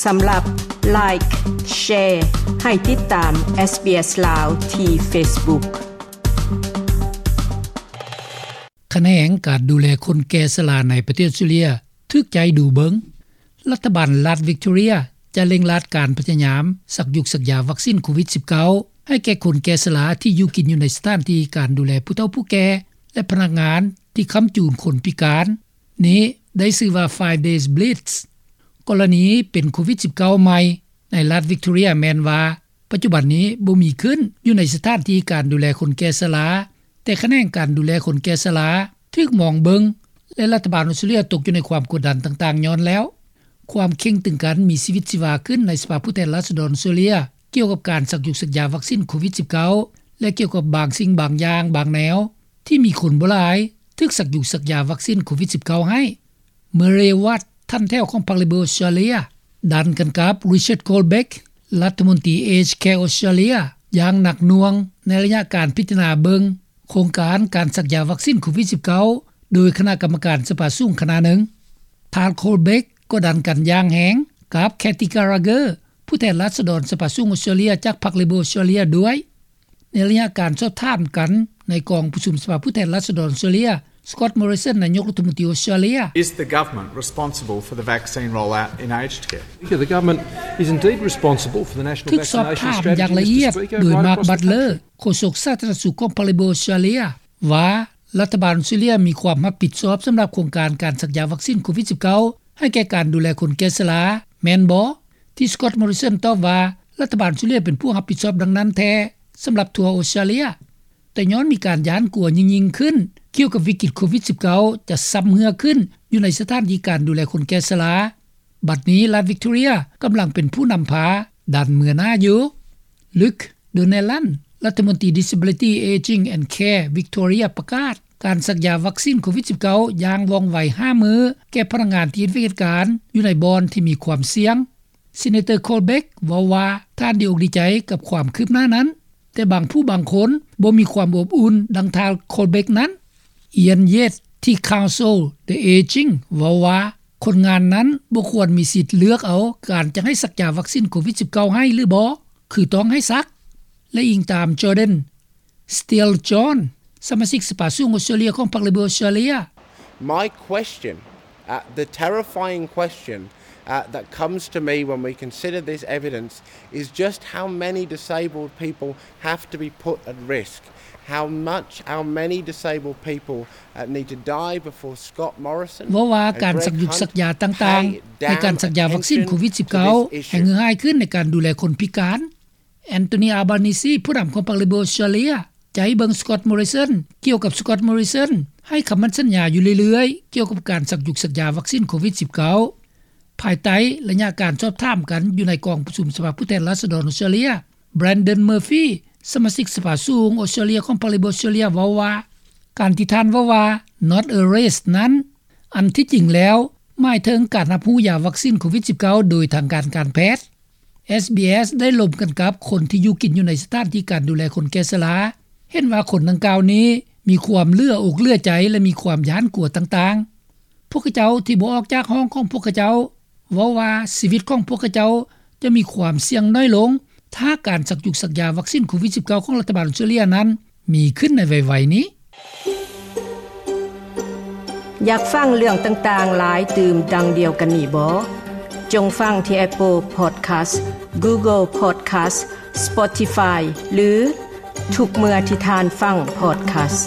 ສຳລັບ Like, Share ໃຫ້ຕິດຕາມ SBS ລາວ ທີ່ Facebook. ຂະແໜງການດູແລຄົນແກ່ຊະລາໃນປະເທດອອສເຕຣເລັຽ ຖືກໃຈດູເບິ່ງ. ລັດຖະບານລັດວິກໂຕເຣຍ ຈະເລັ່ງລັດການພະຍາຍາມສັກຢຸກສັກຢາວັກຊີນໂຄວິດສິບເກົ້າ ໃຫ້ແກ່ຄົນແກ່ຊະລາທີ່ຢູ່ກິນຢູ່ໃນສະຖານທີ່ການດູແລຜູ້ເຖົ້າຜູ້ແກ່ ແລະ ພະນັກງານທີ່ຄ້ຳຈູນຄົນພິການ. ນີ້ໄດ້ຊື່ວ່າ Five Days Blitz. ກໍລະນີເປັນໂຄວິດສິບເກົ້າໃໝ່ໃນລັດວິກໂຕເຣຍແມ່ນວ່າ ປັດຈຸບັນນີ້ບໍ່ມີຂຶ້ນຢູ່ໃນສະຖານທີ່ການດູແລຄົນແກ່ຊະລາ, ແຕ່ຂະແໜງການດູແລຄົນແກ່ຊະລາຖືກມອງເບິ່ງ ແລະ ລັດຖະບານອອສເຕຣເລັຽຕົກຢູ່ໃນຄວາມກົດດັນຕ່າງໆຍ້ອນແລ້ວ. ຄວາມເຄັ່ງຕຶງກັນມີຊີວິດຊີວາຂຶ້ນໃນສະພາຜູ້ແທນລາຊະດອນອອສເຕຣເລັຽ ກ່ຽວກັບການສັກຢຸກສັກຢາວັກຊີນໂຄວິດສິບເກົ້າ ແລະ ກ່ຽວກັບບາງສິ່ງບາງຢ່າງບາງແນວ ທີ່ມີຄົນບໍ່ຫຼາຍຖືກສັກຢຸກສັກຢາວັກຊີນໂຄວິດສິບເກົ້າໃຫ້. ເມີເຣວັດ ທ່ານແຖວຂອງພັກເລເບີອອສເຕຣເລັຽ ດັນກັນກັບ Richard Colbeck ລັດຖະມົນຕີ Aged Care ອອສເຕຣເລັຽ ຢ່າງໜັກໜ່ວງໃນໄລຍະການພິຈາລະນາເບິ່ງໂຄງການການສັກຢາວັກຊີນໂຄວິດສິບເກົ້າ ໂດຍຄະນະກຳມະການສະພາສູງຄະນະໜຶ່ງ. ທ່ານ Colbeck ກໍດັນກັນຢ່າງແຮງກັບ Kathy Gallagher ຜູ້ແທນລາຊະດອນສະພາສູງອອສເຕຣເລັຽຈາກພັກເລເບີອອສເຕຣເລັຽດ້ວຍ. ໃນໄລຍະການສອບຖາມກັນໃນກອງປະຊຸມສະພາຜູ້ແທນລາຊະດອນອອສເຕຣເລັຽ, Scott Morrison ນາຍົກລັດຖະມົນຕີອອສເຕຣເລັຽ Is the government responsible for the vaccine rollout in aged care? The government is indeed responsible for the national vaccination strategy, Mister Speaker, right across the country. ຖືກສອບຖາມຢ່າງລະອຽດໂດຍ Mark Butler ໂຄສົກສາທາລະນະສຸກຂອງພັກເລເບີອອສເຕຣເລັຽ ວ່າລັດຖະບານອອສເຕຣເລັຽມີຄວາມຮັບຜິດຊອບສຳລັບໂຄງການການສັກຢາວັກຊີນໂຄວິດສິບເກົ້າ ໃຫ້ແກ່ການດູແລຄົນແກ່ຊະລາ ແມ່ນບໍ່? ທີ່ Scott Morrison ຕອບວ່າ ລັດຖະບານອອສເຕຣເລັຽເປັນຜູ້ຮັບຜິດຊອບດັ່ງນັ້ນແທ້ ສຳລັບທົ່ວອອສເຕຣເລັຽ. ແຕ່ຍ້ອນມີການຢ້ານກົວຍິ່ງໆຂຶ້ນ ກ່ຽວກັບວິກິດໂຄວິດສິບເກົ້າ ຈະຊຳເຮື້ອຂຶ້ນຢູ່ໃນສະຖານທີ່ການດູແລຄົນແກ່ຊະລາ, ບັດນີ້ລັດວິກໂຕເຣຍກຳລັງເປັນຜູ້ນຳພາດັນເມືອໜ້າຢູ່. Luke Donnellan ລັດຖະມົນຕີ Disability, Ageing and Care Victoria ປະກາດການສັກຢາວັກຊີນໂຄວິດສິບເກົ້າຢ່າງວ່ອງໄວຫ້າມື້ແກ່ພະນັກງານທີ່ເຮັດວຽກເຮັດການຢູ່ໃນບ່ອນທີ່ມີຄວາມສ່ຽງ. Senator Colbeck ເວົ້າວ່າທ່ານດີອົກດີໃຈກັບຄວາມຄືບໜ້ານັ້ນ, ແຕ່ບາງຜູ້ບາງຄົນບໍ່ມີຄວາມອົບອຸ່ນດັ່ງທ່ານ Colbeck ນັ້ນ. Ian Yates ທີ່ Counsel the Aging ເວົ້າວ່າ ຄົນງານນັ້ນບໍ່ຄວນມີສິດເລືອກເອົາການຈະໃຫ້ສັກຢາວັກຊີນໂຄວິດສິບເກົ້າໃຫ້ ຫຼື ບໍ່, ຄືຕ້ອງໃຫ້ສັກ. ແລະ ອີງຕາມ Jordan Steele-John ສະມາຊິກສະພາສູງອອສເຕຣເລັຽຂອງພັກເລເບີອອສເຕຣເລັຽ My question, uh, the terrifying question, uh, that comes to me when we consider this evidence is just how many disabled people have to be put at risk, how much, how many disabled people, uh, need to die before Scott Morrison, ເວົ້າວ່າການສັກຢຸກສັກຢາຕ່າງໆ ໃນການສັກຢາວັກຊີນໂຄວິດສິບເກົ້າ ແຮ່ງເຫື່ອຫາຍຂຶ້ນໃນການດູແລຄົນພິການ. Anthony Albanese ຜູ້ນຳຂອງພັກເລເບີອອສເຕຣເລັຽ ຈະໃຫ້ເບິ່ງ Scott Morrison ກ່ຽວກັບ Scott Morrison ໃຫ້ຄຳໝັ້ນສັນຍາຢູ່ເລື້ອຍໆ ກ່ຽວກັບການສັກຢຸກສັກຢາວັກຊີນໂຄວິດສິບເກົ້າ. ພາຍໃຕ້ໄລຍະການສອບຖາມກັນຢູ່ໃນກອງປະຊຸມສະພາຜູ້ແທນລາຊະດອນອອສເຕຣເລັຽ, Brendan Murphy ສະມາຊິກສະພາສູງອອສເຕຣເລັຽຂອງພັກເລເບີອອສເຕຣເລັຽເວົ້າວ່າ ການທີ່ທ່ານເວົ້າວ່າ not a risk ນັ້ນ ອັນທີ່ຈິງແລ້ວໝາຍເຖິງການຮັບຮູ້ຢາວັກຊີນໂຄວິດສິບເກົ້າໂດຍທາງການການແພດ. SBS ໄດ້ລົມກັນກັບຄົນທີ່ຢູ່ກິນຢູ່ໃນສະຖານທີ່ການດູແລຄົນແກ່ຊະລາ ເຫັນວ່າຄົນດັ່ງກ່າວນີ້ມີຄວາມເຫຼືອອົກເຫຼືອໃຈ ແລະ ມີຄວາມຢ້ານກົວຕ່າງໆ. ພວກເຂົາເຈົ້າທີ່ບໍ່ອອກຈາກຫ້ອງຂອງພວກເຂົາເຈົ້າ ເວົ້າວ່າຊີວິດຂອງພວກເຂົາເຈົ້າຈະມີຄວາມສ່ຽງໜ້ອຍລົງ ຖ້າການສັກຢຸກສັກຢາວັກຊີນໂຄວິດສິບເກົ້າຂອງລັດຖະບານອອສເຕຣເລັຽນັ້ນມີຂຶ້ນໃນໄວໆນີ້. ຢາກຟັງເລື່ອງຕ່າງໆຫຼາຍຕື່ມດັ່ງດຽວກັນນີ້ບໍ? ຈົ່ງຟັງທີ່ Apple Podcast, Google Podcast, Spotify ຫຼື ທຸກເມື່ອທີ່ທ່ານຟັງ podcast.